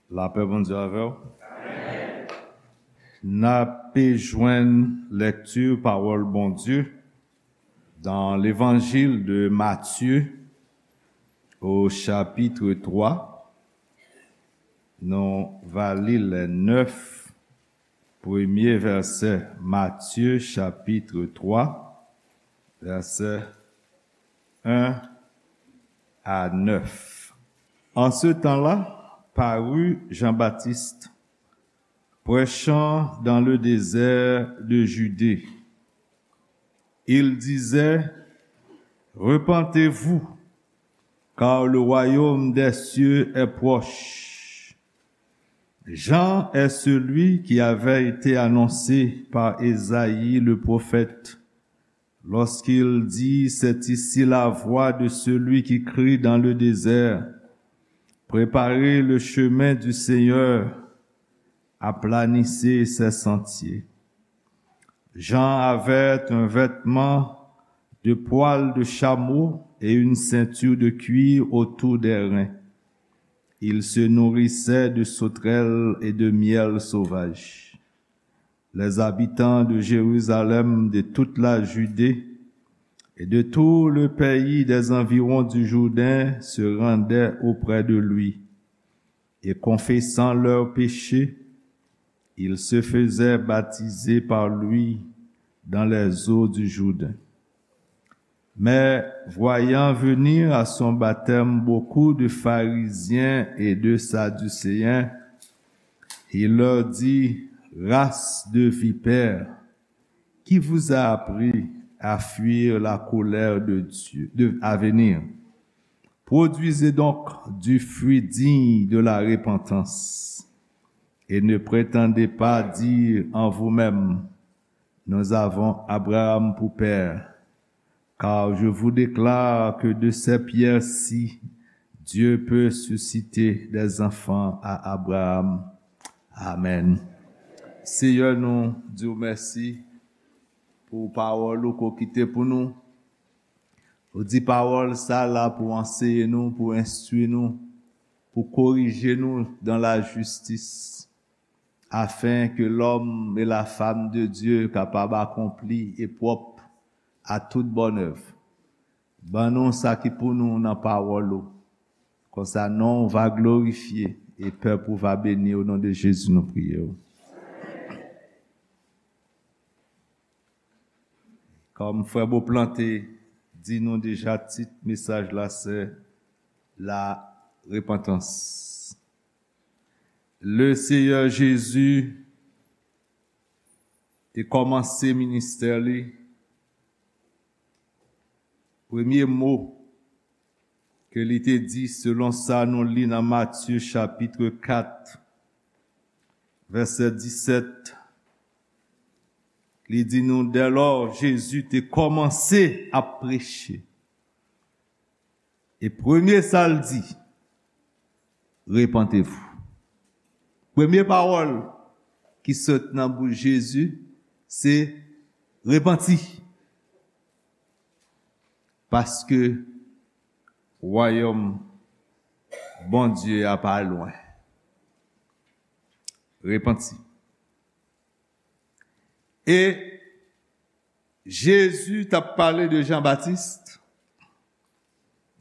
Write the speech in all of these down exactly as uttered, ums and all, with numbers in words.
Lapè Bondye avè w. N ape jwenn lekti pawòl Bondye dans l'évangile de Matthieu au chapitre trois. Nou va li le neuf premye vèsè. Matthieu chapitre trois, vèsè un à neuf. En ce temps-là, parut Jean-Baptiste, prêchant dans le désert de Judée. Il disait, repentez-vous, car le royaume des cieux est proche. Jean est celui qui avait été annoncé par Ésaïe le prophète, lorsqu'il dit, c'est ici la voix de celui qui crie dans le désert, préparez le chemin du Seigneur, aplanissez ses sentiers. Jean avait un vêtement de poil de chameau et une ceinture de cuir autour des reins. Il se nourrissait de sauterelles et de miel sauvage. Les habitants de Jérusalem, de toute la Judée et de tout le pays des environs du Jourdain se rendaient auprès de lui, et confessant leurs péchés, ils se faisaient baptiser par lui dans les eaux du Jourdain. Mais voyant venir à son baptême beaucoup de pharisiens et de sadducéens, il leur dit, race de vipères, qui vous a appris à fuir la colère de Dieu, de, à venir? Produisez donc du fruit digne de la repentance, et ne prétendez pas dire en vous-même, nous avons Abraham pour père, car je vous déclare que de ces pierres-ci, Dieu peut susciter des enfants à Abraham. Amen. Seyè, nou di w mèsi pou pawòl ou ke w kite pou nou. Ou di pawòl sa la pou anseye nou, pou enstwi nou, pou korije nou dans la justice, afin que l'homme et la femme de Dieu kapab akonpli e pwòp à toute bonne œuvre. Ban nou sa ki pou nou nan pawòl ou. Konsa non w va glorifye e pèp ou va beni, o non de Jezi nou priye w. Kòm frè Beauplan te di nou deja, tit mesaj la se la repantans. Le Seyè Jezi te kòmanse ministè li, premye mo ke li te di, selon sa nou li nan Matye chapit kat, vèsè disèt, li di nou, dèlò Jezi te kòmanse ap preche. E premye sa l di, repentez-vous. Premye pawòl ki sot nan bouch Jezi, se repanti. Paske wayòm Bondye a pa lwen. Repanti. E Jezi t ap pale de Jan Batis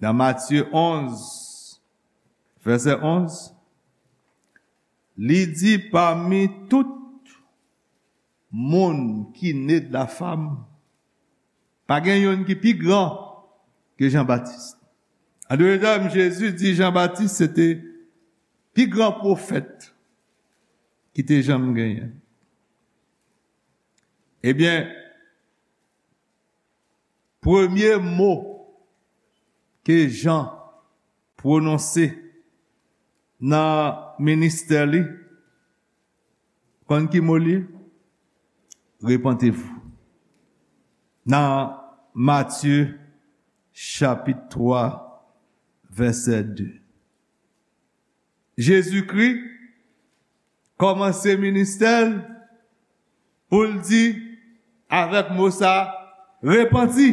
nan Matye onz, vèsè onz. Li di, pami tout moun ki ne de la femme, pa gen youn ki pi gran ke Jan Batis. An dòt tèm, Jezi di Jan Batis se te pi gran pwofèt ki te janm genyen. Ebyen, premye mo ke Jan pwononse nan ministè li, konn ki mo li ye? Repentez-vous. Nan Matye chapit twa, vèsè de. Jezikri kòmanse ministè l pou l di avèk mo sa, repanti.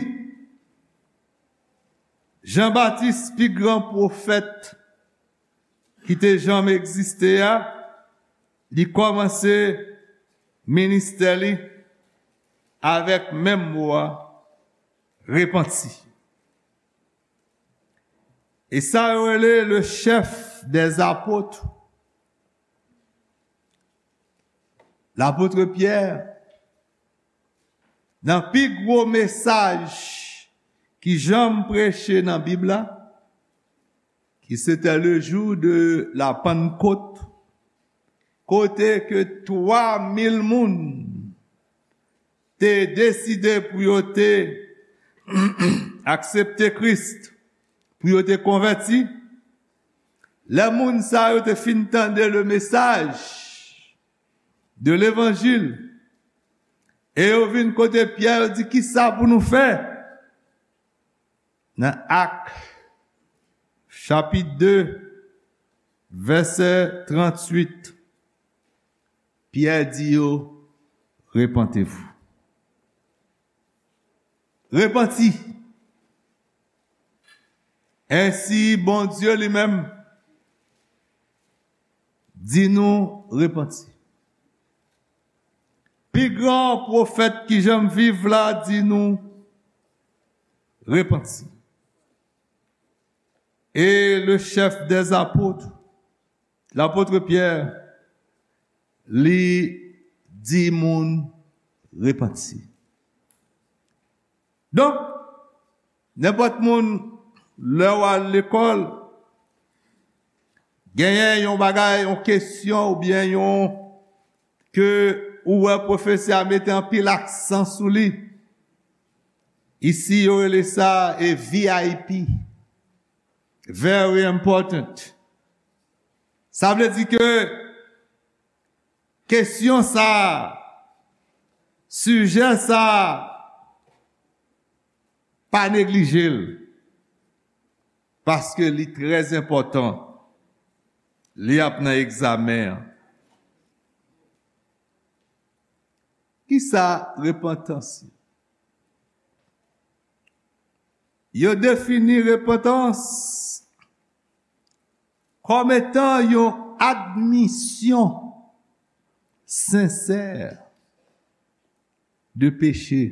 Jan Batis, pi gran pwofèt ki te janm egziste a, li kòmanse ministè li avèk menm mo a, repanti. E sa yo rele le chef des apôtres, lapot Pyè, nan pi gwo mesaj ki janm preche nan Bib la, ki se te le jou de la Pannkot, kote ke twa mil moun te deside pou yo te aksepte Kris, pou yo te konvèti. Lè moun sa yo te fin tande le mesaj de levanjil, e yo vin kote Pyè, yo di, "Kisa pou nou fè?" Nan Ak, chapit de, vèsè tranntuit, Pyè di yo, "Repentez-vous." Repanti. Ensi, Bondye li menm di nou repanti. Pi gran pwofèt ki janm viv la di nou repanti. E le chef des apôtres, lapot Pyè, li di moun repanti. Donk, nenpòt moun, lè w al lekòl, genyen yon bagay, yon kesyon oubyen yon, ke ou wè pwofesè a mete anpil aksan sou li. Isi, yo rele sa e V I P. Very important. Sa vle di ke kesyon sa, sijè sa, pa neglije l, paske li trè enpòtan. Li ap nan egzamen an. Kisa repantans ye? Yo defini repantans kòm etan yon admisyon sensè de peche.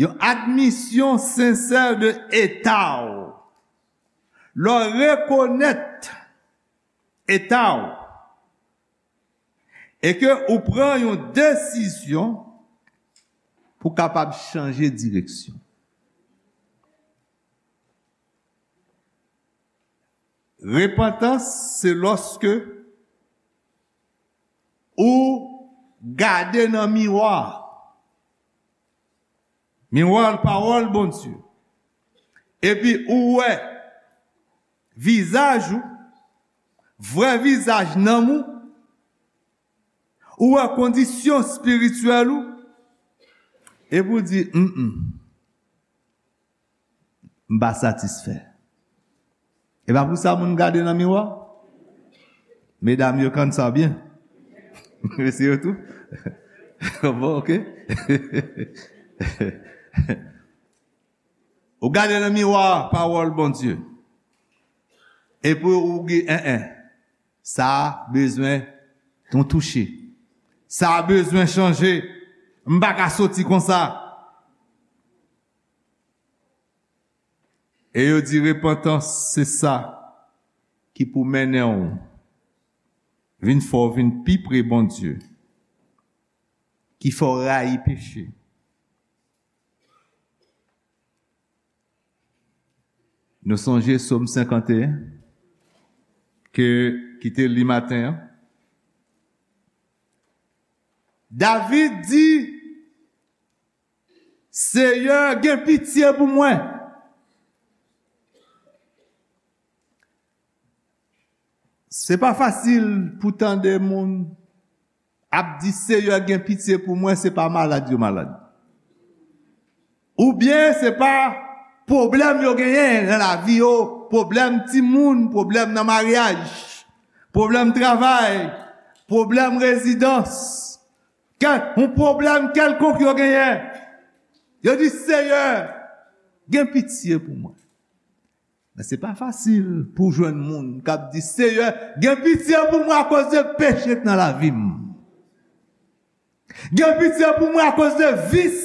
Yon admisyon sensè de eta w. Lè w rekonèt eta w e ke ou pran yon desizyon pou kapab chanje direksyon. Repantans, se lòske ou gade nan miwa. Miwa pawòl Bondye. Epi ou wè vizaj ou, vrè vizaj nanm ou, ou wè kondisyon espirityèl ou, epi ou di, "Mm, mm, m pa satisfè." E pa pou sa moun gade nan miwa. Medam yo konn sa byen. Mesye yo tou. Bon, ok. Ou gade nan miwa pawòl Bondye. Epi ou di, "En, en, sa a bezwen yon touche. Sa a bezwen chanje. M pa ka soti konsa." E yo di repantans, se sa ki pou mennen w vin fè w vin pi pre Bondye, ki fè w rayi peche. Nou sonje Sòm senkanteyen, ke, ki te li maten an. David di, "Seyè, gen pitye pou mwen." Se pa fasil pou tande moun ap di, "Seyè, gen pitye pou mwen," se pa malad yo malad. Oubyen se pa pwoblèm yo genyen nan lavi yo, pwoblèm timoun, pwoblèm nan maryaj, pwoblèm travay, pwoblèm rezidans, kèl, yon pwoblèm kèlkonk yo genyen. Yo di, "Seyè, gen pitye pou mwen." Men se pa fasil pou w jwenn moun k ap di, Seyè, gen pitye pou mwen akoz de peche k nan lavi m. Gen pitye pou mwen akoz de vis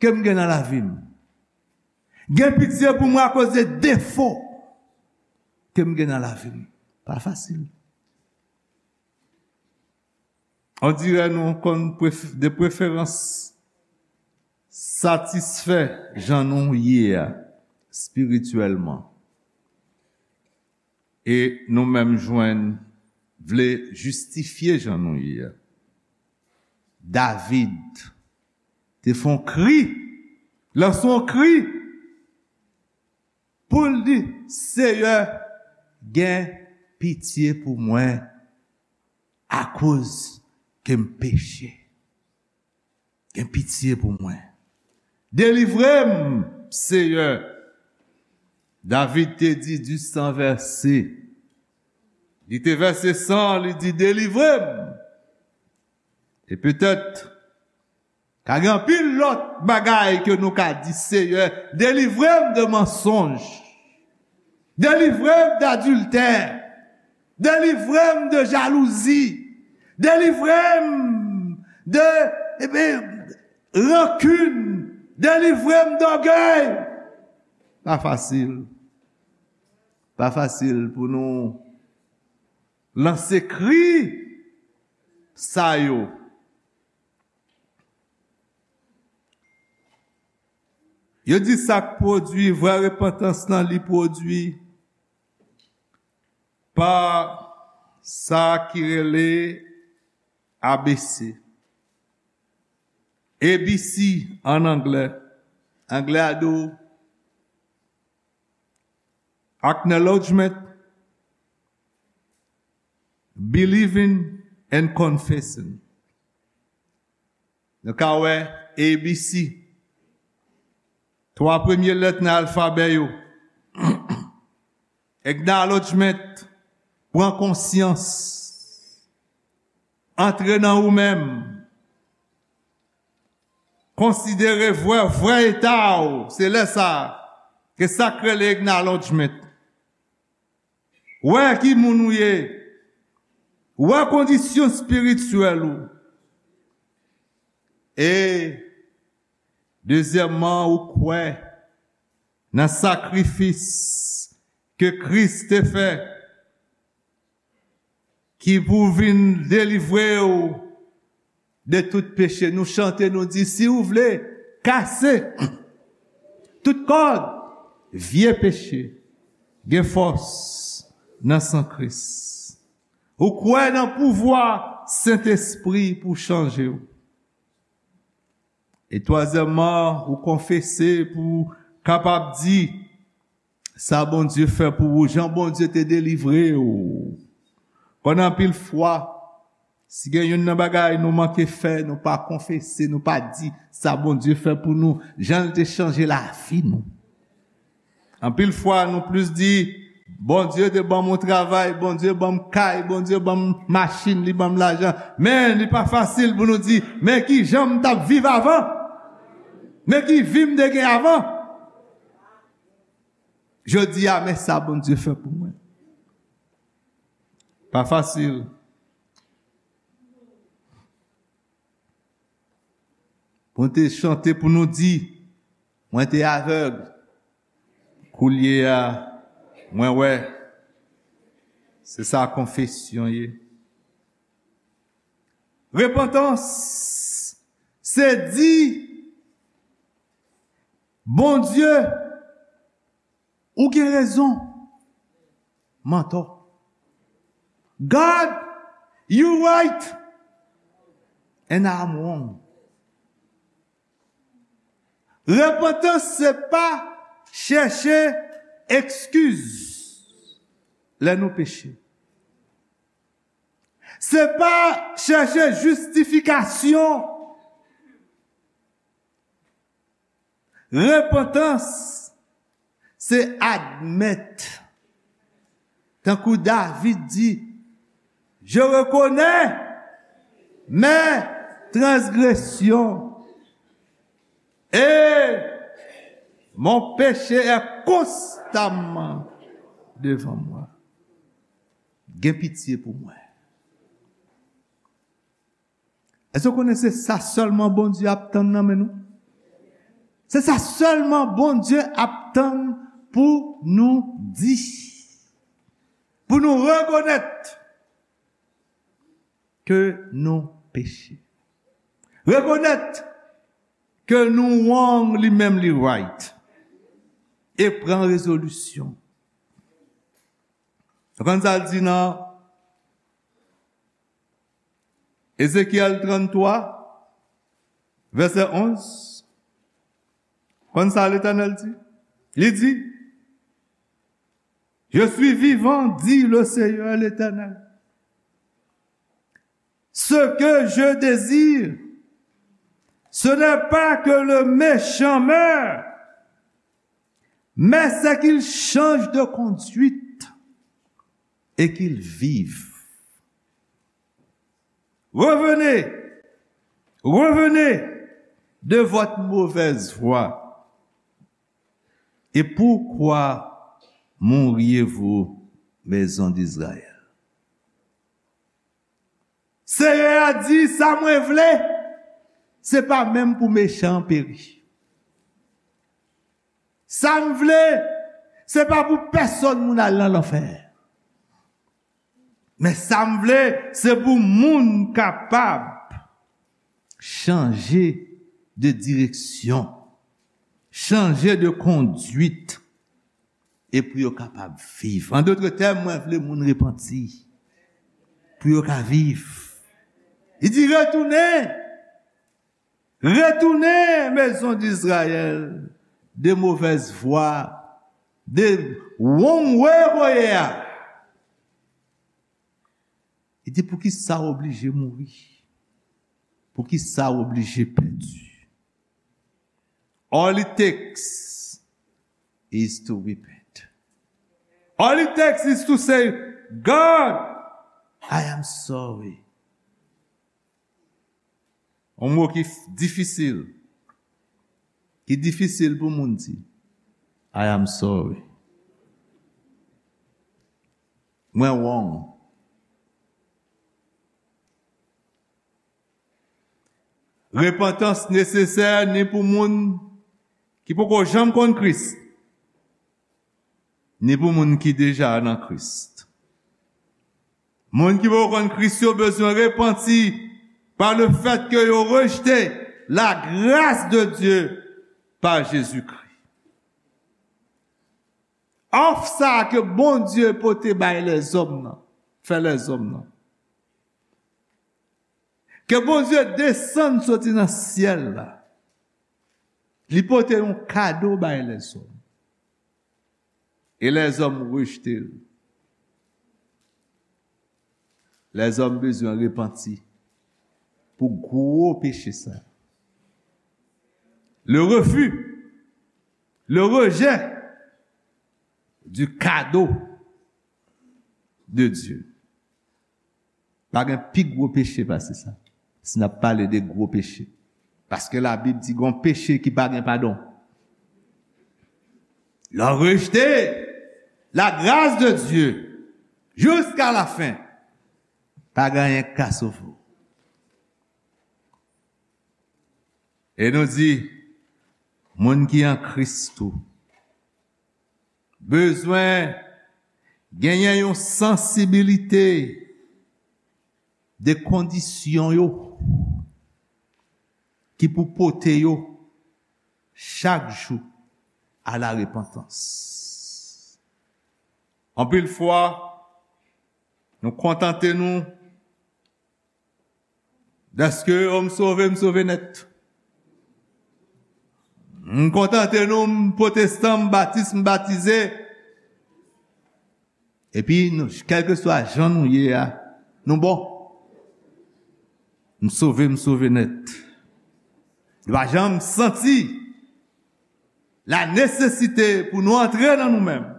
ke m gen nan lavi m. Gen pitye pou mwen akoz de defo ke m gen nan lavi m. Pa fasil. On dirè nou konn pref- de preferans satisfè jan nou ye a, espirityèlman. E nou menm jwenn vle jistifye jan nou ye a. David te fè yon kri, lanse yon kri, pou l di, Seyè, gen pitye pou mwen, akoz ke m peche. Gen pitye pou mwen. Delivre m, Seyè. David te di, di san vèse. Li te vèse san, li di, delivre m. E petèt, ka gen anpil lòt bagay ke nou ka di, Seyè, delivre m de mansonj. Delivre m de adiltè. Delivre m de jalouzi. Delivre m de, ebyen, rankin. Delivre m de ògèy. Pa fasil. Pa fasil pou nou lanse kri sa yo. Yo di sa k pwodui vrè repantans lan, li pwodui pa sa ki rele A B C. A B C an anglè. Anglè a di w acknowledgement, believing and confessing. Nou ka wè A B C. Twa premye lèt nan alfabè yo. Acknowledgement, pran konsyans. Antre nan ou menm. Konsidere vrè, vrè eta w. Se lè sa a ke sa k rele acknowledgement. Wè ki moun ou ye. Wè kondisyon espirityèl ou. E, dezyèmman, ou kwè nan sakrifis ke Kris te fè, ki pou vin delivre w de tout peche. Nou chante, nou di, si w vle, kase tout kòd, vye peche, gen fòs nan san Kris. Ou kwè nan pouvwa Sentespri pou chanje w. E twazyèmman, ou konfese pou w kapab di sa Bondye fè pou ou, jan Bondye te delivre w. Konn anpil fwa, si gen youn nan bagay nou manke fè, nou pa konfese, nou pa di sa Bondye fè pou nou, jan l te chanje lavi nou. Anpil fwa, nou plis di, Bondye te ban m yon travay, Bondye ban m kay, Bondye ban m machin, li ban m lajan. Men, li pa fasil pou nou di, men ki jan m t ap viv avan. Men ki vi m te gen avan. Jodi a, men sa Bondye fè pou mwen. Pa fasil. Pou nou te chante, pou nou di, mwen te avèg, koulye a, mwen wè. Se sa konfesyon ye. Repantans, se di, Bondye, ou gen rezon. M antò. God, you right. And I'm wrong. Repantans se pa chèche ekskiz lè nou peche. Se pa chèche jistifikasyon. Repantans, se admèt. Tankou David di, je reconnais mes transgressions et Mon péché est constamment devant moi. Gen pitye pou mwen. Èske w konnen se sa sèlman Bondye ap tann nan men nou? Se sa sèlman Bondye ap tann pou nou di. Pou nou rekonèt ke nou peche. Rekonèt ke nou wrong, li menm li right. E pran rezolisyon. Ou konn sa l di nan Ezekyèl tranntwa, vèsè onz? Konn sa Letènèl di? Li di, Je suis vivant, dit le Seigneur l'Éternel. Ce que je désire, ce n'est pas que le méchant meure, mais c'est qu'il change de conduite et qu'il vive. Revenez, revenez de votre mauvaise voie. Et pourquoi mouriez-vous, maison d'Israël? Senyè a di, sa mwen vle, se pa menm pou mechan an peri. Sa m vle, se pa pou pèsonn moun al nan lanfè. Men sa m vle, se pou moun kapab chanje de direksyon, chanje de kondwit, e pou yo kapab viv. An dòt tèm, mwen vle moun repanti, pou yo ka viv. Li di, retounen, retounen, maison d'Israël, de mauvaise voie, de wrong way w ye a. Li di, poukisa w oblije mouri? Poukisa w oblije pèdi? All it takes is to repent. All it takes is to say, God, I am sorry. Yon mo ki f- difisil. Ki difisil pou moun di, I am sorry. Mwen wrong. Repantans nesesè ni pou moun ki poko janm konn Kris, ni pou moun ki deja nan Kris. Moun ki poko konn Kris yo bezwen repanti pa le fèt ke yo rejte la grâce de Dieu pa Jezikri. Òf sa a ke Bondye pote bay lèzòm nan, fè lèzòm nan. Ke Bondye desann soti nan syèl la. Li pote yon kado bay lèzòm. E lèzòm rejte l. Lèzòm bezwen repanti pou gwo peche sa. Le refus, le rejet du cadeau de Dieu. Pa gen pi gwo peche pase sa. Si n ap pale de gwo peche. Paske Labib di gon peche ki pa gen padon. Lè w rejte la grâce de Dieu jusqu'à la fin, pa gen anyen k ka sove w. E nou di, moun ki an Kris tou bezwen genyen yon sansibilite de kondisyon yo ki pou pote yo chak jou a la repantans. Anpil fwa, nou kontante nou dèske, o, m sove, m sove nèt. M kontante nou, m pwotestan, m batis, m batize. Epi, nou, kèlkeswa jan nou ye a, nou bon. M sove, m sove nèt. Nou pa janm santi la nesesite pou nou antre nan nou menm.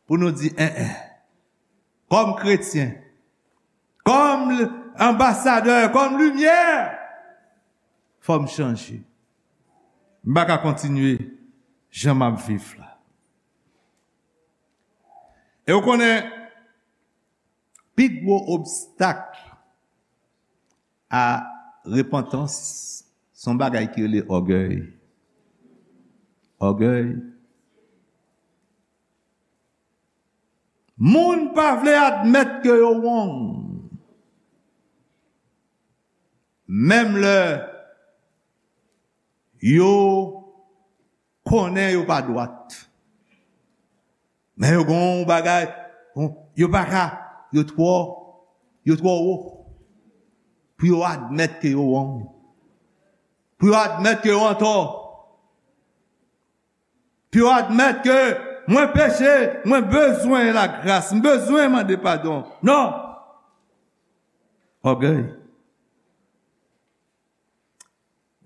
Pou nou di, en, en. Kòm kretyen, kòm l- anbasadè, kòm limyè, fò m chanje. M pa ka kontinye jan m ap viv la. E w konnen, pi gwo obstak a repantans, se yon bagay ki rele ògèy. Ògèy. Moun pa vle admèt ke yo wrong. Menm lè yo konnen yo pa dwat. Men yo gen yon bagay, yon, yo pa ka, yo twò, yo twò wo. Pou yo admèt ke yo wrong. Pou yo admèt ke yo antò. Pou yo admèt ke mwen peche, mwen bezwen lagras, m bezwen mande padon. Non! Ògèy.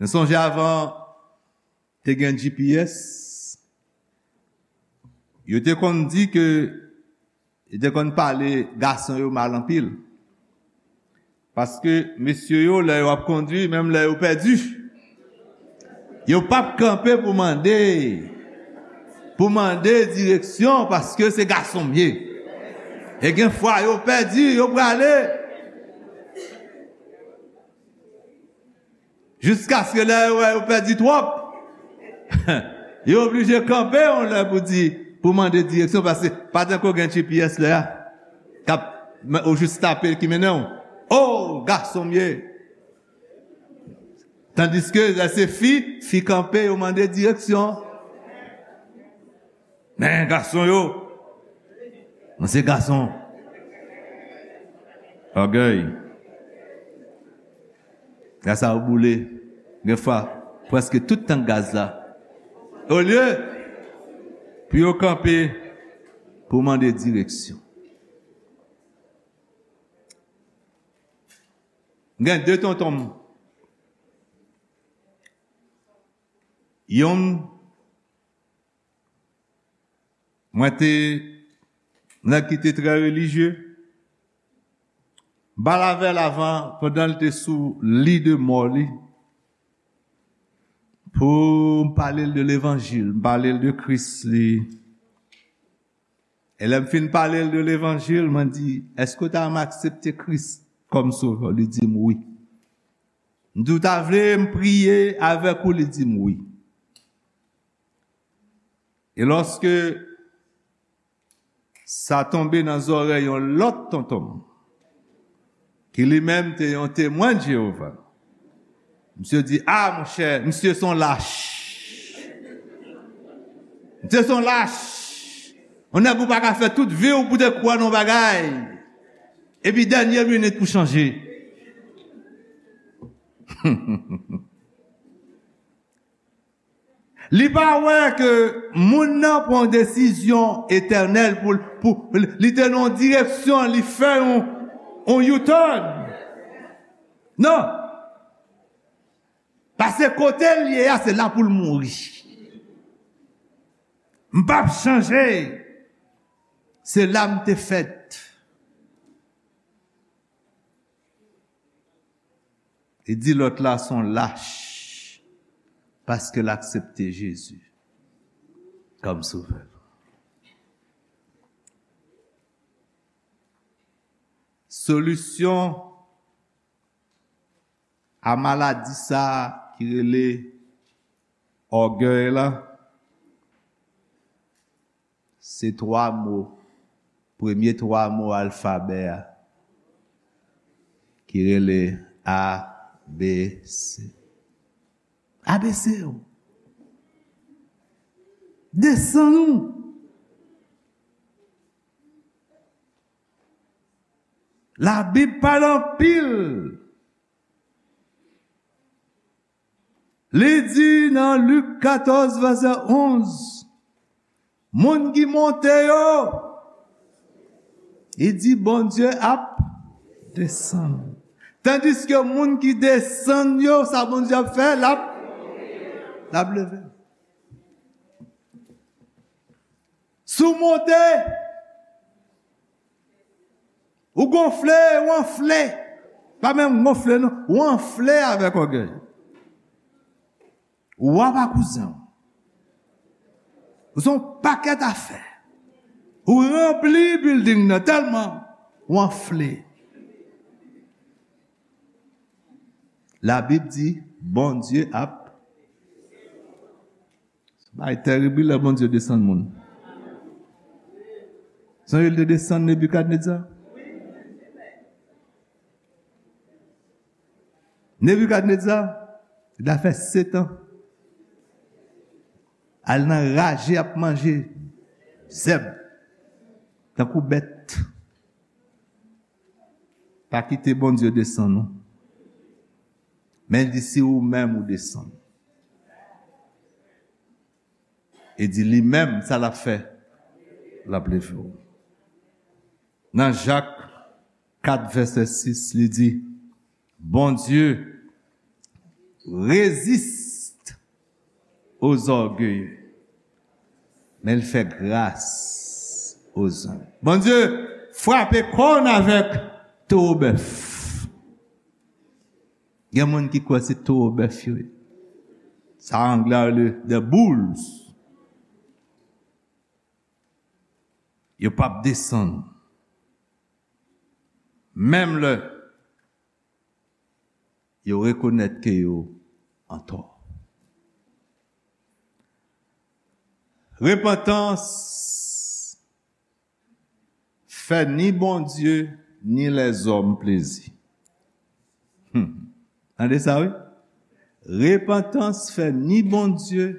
Nou sonje avan te gen G P S, yo te konn di ke, yo te konn pale gason yo mal anpil. Paske mesye yo, lè yo ap kondui, menm lè yo pèdi, yo p ap kanpe pou mande, pou mande direksyon, paske se gason m ye. E gen fwa yo pèdi, yo prale. Jiskaske lè yo wè yo pèdi twòp, yo oblije kanpe yon lè pou di, pou mande direksyon, paske pa tankou gen G P S lè a, k ap, ou jis tape ki mennen w. O, gason m ye. Tandiske lè se fi, fi kanpe, yo mande direksyon. Men gason yo, mwen se gason. Ògèy. Gaz sa ou boule. Gen fwa, prèske tout tank gaz la. Olye pou yo kanpe pou mande direksyon. Gen de tonton m. Yonn, mwen te nèg ki te trè relijye. M pale avè l avan, pandan l te sou li de mò li, pou m pale l de levanjil, m pale l de Kris li. E lè m fin pale l de levanjil, mwen di, èske w ta renmen aksepte Kris kòm sovè w? Li di m wi. M di, w ta vle m priye avèk ou? Li di m wi. E lòske sa tonbe nan zòrèy yon lòt tonton m, ki li menm te yon Temwen de Jewova, misye di, a, monchè, misye se yon lach. Misye se yon lach. Yon nèg ou pa ka fè tout vi w pou te kwè nan yon bagay. Epi dènye minit pou chanje. Li pa wè ke moun nan pran yon desizyon etènèl pou, pou li te nan yon direksyon, li fè yon, yon U-turn. Non. Paske kote l ye a, se la pou l mouri. M p ap chanje. Se la m te fèt. Li di lòt la se yon lach paske l aksepte Jezi kòm sovè l. Solisyon a maladi sa a ki rele ògèy la, se twa mo, premye twa mo alfabè a, ki rele A B C. A B C yo. Desann ou. Labib pale anpil. Li di nan Lik katòz, vèsè onz, moun ki monte yo, li di Bondye ap desann. Tandiske moun ki desann yo, sa Bondye ap fè? L ap, l ap leve. Si w monte, ou gonfle, ou anfle. Pa menm gonfle, non. Ou anfle avèk ògèy. Wa pa kouzen w. Ou se yon pakèt afè. Ou ranpli bilding nan tèlman ou anfle. Labib di, Bondye ap. Bagay terib wi lè Bondye desann moun. Sonje l te desann Nebikadneza. Nebikadneza, li ta fè sèt an. Al nan raje ap manje zèb. Tankou bèt. Pa kite Bondye desann ou. Men li di si ou menm ou desann. E di li menm, sa l ap fè? L ap leve w. Nan Jak kat vèsè sis, li di, Bondye reziste aux orgueilleux, men l fè gras aux humbles. Bondye frape kòn avèk towo bèf. Gen moun ki kwè se towo bèf yo ye. Sa anglè a rele the bulls. Yo p ap desann. Menm lè yo rekonèt ke yo antò. Repantans fè ni Bondye ni lèzòm plezi. Hmm. Tande sa, wi. Repantans fè ni Bondye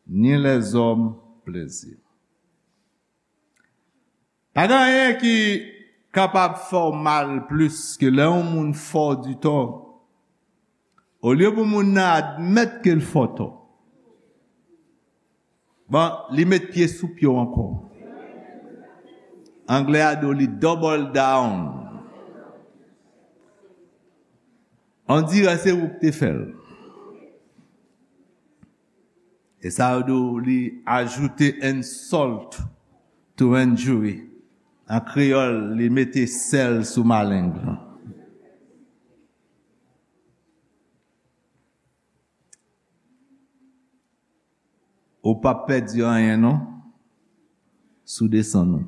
ni lèzòm plezi. Pa gen anyen ki kapab fè w mal plis ke lè yon moun fè w di tò. Olye pou moun nan admèt ke l fè w tò, bon, li met pye sou pye w ankò. Anglè a di w li double down. On dirè se ou k te fè l. E sa yo di w li ajoute insult to injury. An kreyòl, li mete sèl sou maleng lan. Ou p ap pèdi anyen non, si w desann ou.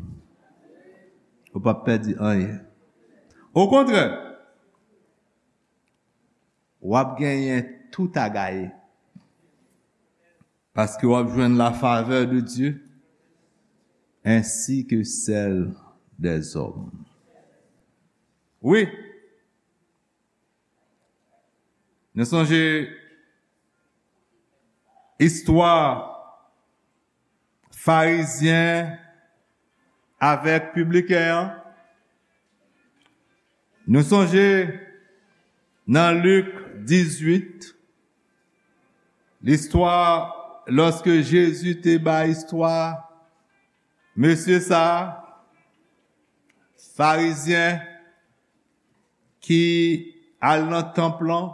Ou p ap pèdi anyen. Okontrè, w ap genyen tout a gaye. Paske w ap jwenn la favè de Dye, ensi ke sèl dèzòm. Wi, nou sonje istwa Farizyen avèk pibliken an. Nou sonje nan Lik dizuit, listwa, lòske Jezi te bay istwa mesye sa a, Farizyen ki al nan tanp lan,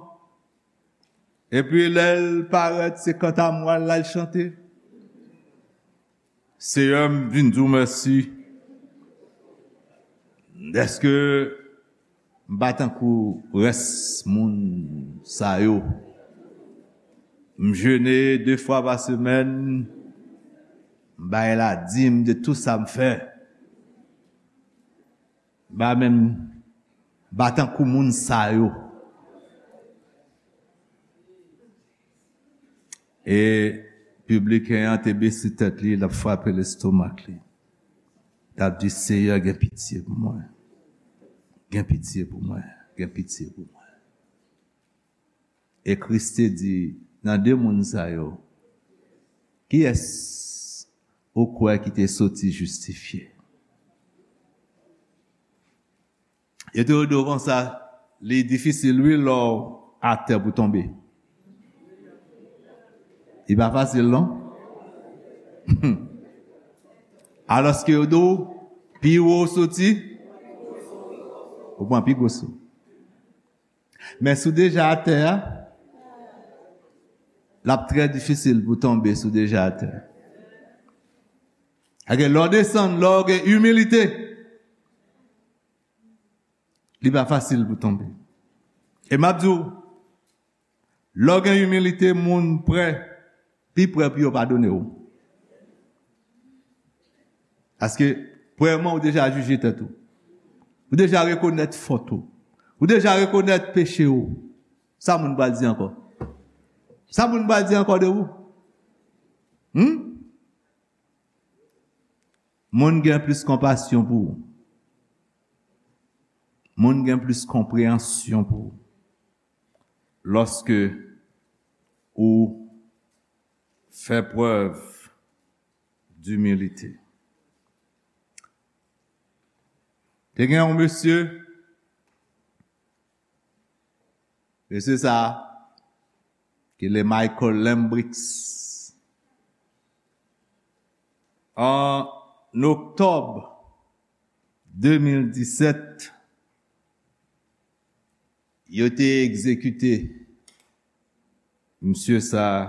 epi lè l parèt, se kantamwal l al chante. Seyè, m vin di w mèsi dèske m pa tankou rès moun sa yo. M jene de fwa pa semèn, m bay ladim de tou sa m fè. M pa menm, m pa tankou moun sa yo. E pibliken an te bese tèt li, l ap frape lestomak li. L ap di, Seyè, gen pitye pou mwen. Gen pitye pou mwen. Gen pitye pou mwen. E Kris te di, nan de moun sa yo, kiyès ou kwè ki te soti jistifye? Yo te di w konsa, li difisil wi lè w atè pou tonbe. Li pa fasil non. Alòske yo di w, pi wo w soti, ou pran pi gwo sou. Men si w deja atè a, l ap trè difisil pou tonbe si w deja atè. Paske lè w desann, lè w gen imilite, li pa fasil pou tonbe. E m ap di w, lè w gen imilite, moun prè, pi prè pou yo padone w. Paske, premyèman, ou deja jije tèt ou. Ou deja rekonèt fòt ou. Ou deja rekonèt peche ou. Sa moun pral di ankò? Sa moun pral di ankò de ou? Hmm? Moun gen plis konpasyon pou ou. Moun gen plis konpreyansyon pou ou. Lòske ou fè prèv dimilite. Te gen yon mesye, mesye sa a, ki le Michael Lambrix. An oktòb de mil disèt, yo te egzekite misye sa a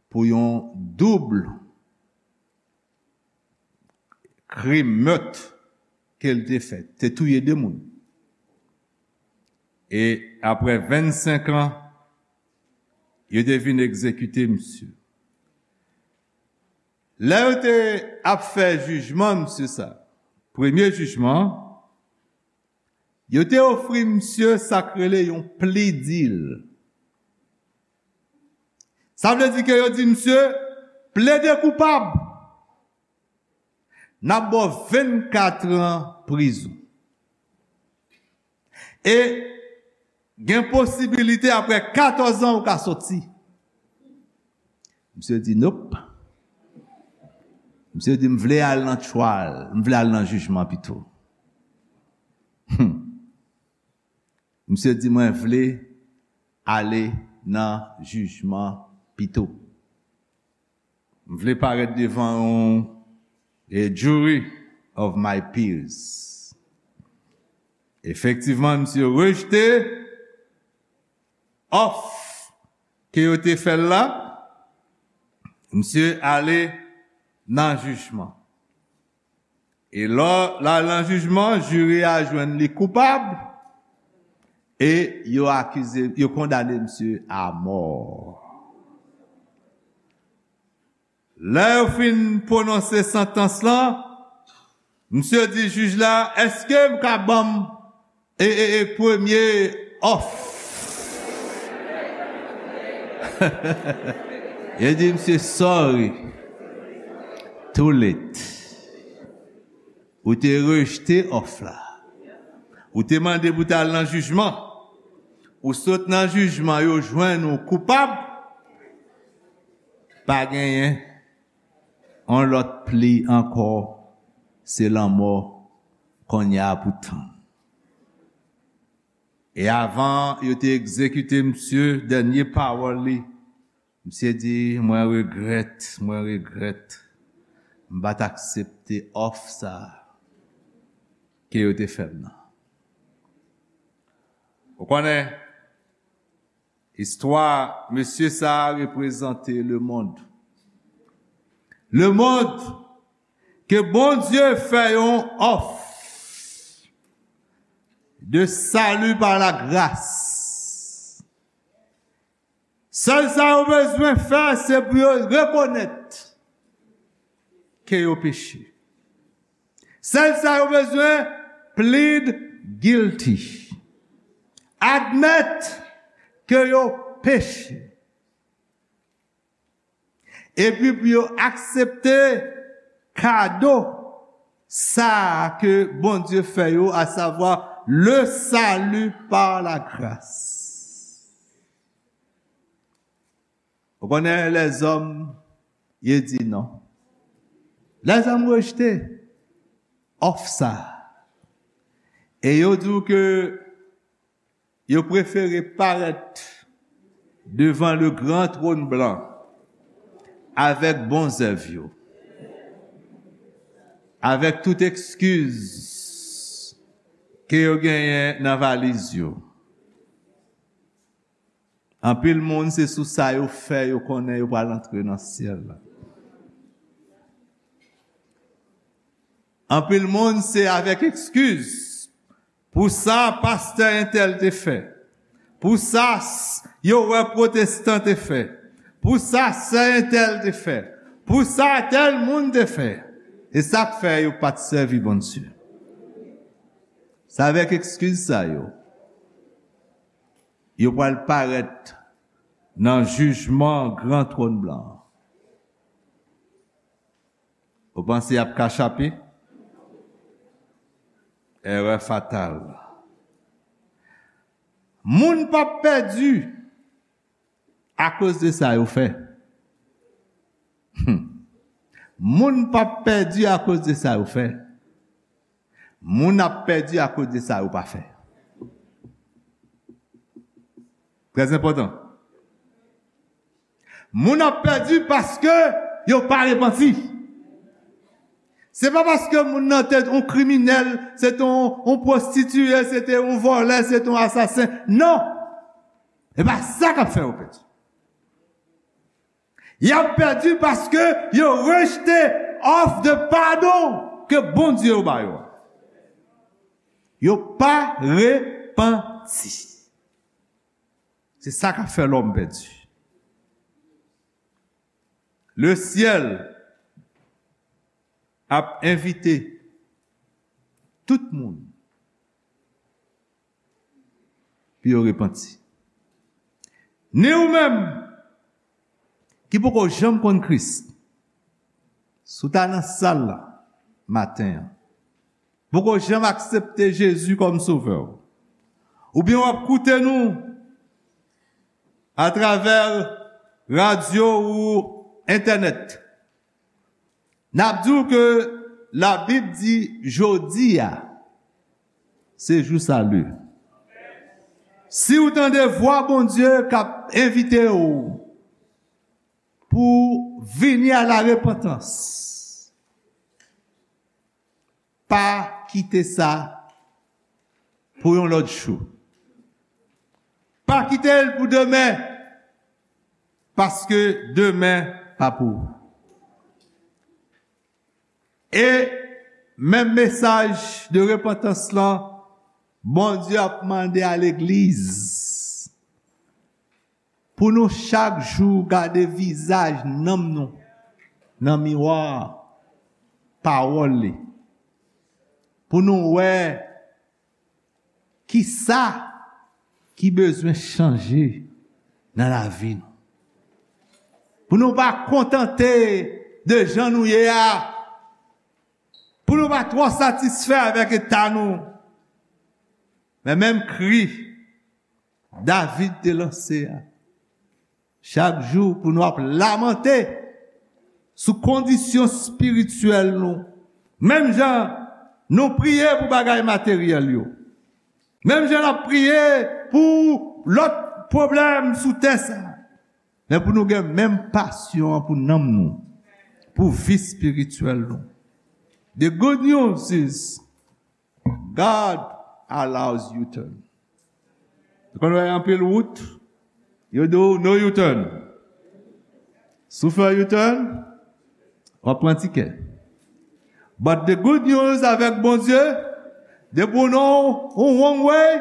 pou yon doub krim mèt ke l te fè. Te touye de moun. E apre vennsenk an, yo te vin egzekite misye. Lè yo te ap fè jijman misye sa, premye jijman, yo te ofri misye sa k rele yon plea deal. Sa vle di ke yo di misye, plede koupab, n ap ba w vennkat an prizon. E gen posibilite apre katòz an ou ka soti. Misye di, "Nope." Misye di, "M vle al nan trial, m vle al nan jijman pito." Hmm. Misye di, "Mwen vle ale nan jijman pito. M vle parèt devan yon, a jury of my peers." Efektivman, misye rejte òf ke yo te fè l la. Misye ale nan jijman. E lò l al nan jijman, jiri a jwenn li koupab e yo akize, yo kondane misye a mò. Lè yo fin pwononse santans lan, misye di jij la, "Èske m ka ban m e, e, e premye òf?" Yo di, "Misye, sorry. Too late. Ou te rejte òf la. Ou te mande pou t al nan jijman. Ou sot nan jijman, yo jwenn ou koupab. Pa genyen yon lòt pli ankò, se lanmò kounye a pou tann." E avan yo te egzekite misye, dènye pawòl li, misye di, "Mwen regrèt, mwen regrèt. M pa t aksepte òf sa a ke yo te fè m nan." Ou konnen, istwa mesye sa a reprezante lemonn. Lemonn ke Bondye fè yon òf de salut par la grâce. Sèl sa yo bezwen fè, se pou yo rekonèt ke yo peche. Sèl sa yo bezwen, plead guilty. Admèt ke yo peche. Epi pou yo aksepte kado sa a ke Bondye fè yo, à savoir le salut par la grâce. Ou konnen lèzòm, yo di non. Lèzòm rejte òf sa a. E yo di w ke yo prefere parèt devan le gran tròn blan avèk bon zèv yo, avèk tout eskiz ke yo genyen nan valiz yo. Anpil moun, se sou sa yo fè yo konnen yo pral antre nan syèl la. Anpil moun, se avèk eskiz pou sa pastè entèl te fè, pou sa s-, yo wè pwotestan te fè, pou sa sè entèl te fè, Pou sa tèl moun te fè. E sa k fè yo pa t sèvi Bondye. Se avèk ekskiz sa yo, yo pral parèt nan jijman gran twòn blan an. Ou panse y ap ka chape? Erè fatal. Moun p ap pèdi akoz de sa yo fè. Hmm. Moun p ap pèdi akoz de sa yo fè. Moun ap pèdi akoz de sa yo pa fè. Trè enpòtan. Moun ap pèdi paske yo pa repanti. Se pa paske moun nan te yon kriminèl, se te yon, yon pwostitiye, se te yon vòlè, se te yon asasen. Non! E pa sa k ap fè yo pèdi. Y ap pèdi paske yo rejte òf de padon ke Bondye yo ba yo a. Yo pa repanti. Se sa k ap fè lòm pèdi. Lesyèl ap envite tout moun pou yo repanti. Ni ou menm ki poko janm konn Kris, si w ta nan sal la maten an, poko janm aksepte Jezi kòm sovè w, oubyen w ap koute nou atravè radyo ou entènèt, n ap di w ke Labib di jodi a se jou sali. Si w tande vwa Bondye k ap envite w pou vini a la repantans, pa kite sa pou yon lòt jou. Pa kite l pou demen, paske demen pa pou ou. E menm mesaj de repantans lan, Bondye ap mande a legliz pou nou chak jou gade vizaj nanm nou nan miwa pawòl li. Pou nou wè kisa ki bezwen chanje nan lavi nou. Pou nou pa kontante de jan nou ye a. Pou nou pa twò satisfè avèk eta nou. Men menm kri David te lanse a, chak jou pou nou ap lamante sou kondisyon espirityèl nou. Menm jan nou priye pou bagay materyèl yo. Menm jan n ap priye pou lòt pwoblèm sou tè sa a. Men pou nou gen menm pasyon an pou nanm nou, pou vi espirityèl nou. The good news is God allows U-turn. Ou konn wè anpil wout, yo di w no U-turn. Si w fè U-turn, w ap pran tikè. But the good news avèk Bondye, depi w nan yon wrong way,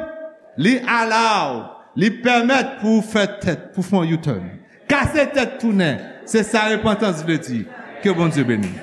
li allow, li pèmèt pou w fè tèt, pou w fè yon U-turn. Kase tèt tounen, se sa repantans vle di. Ke Bondye beni.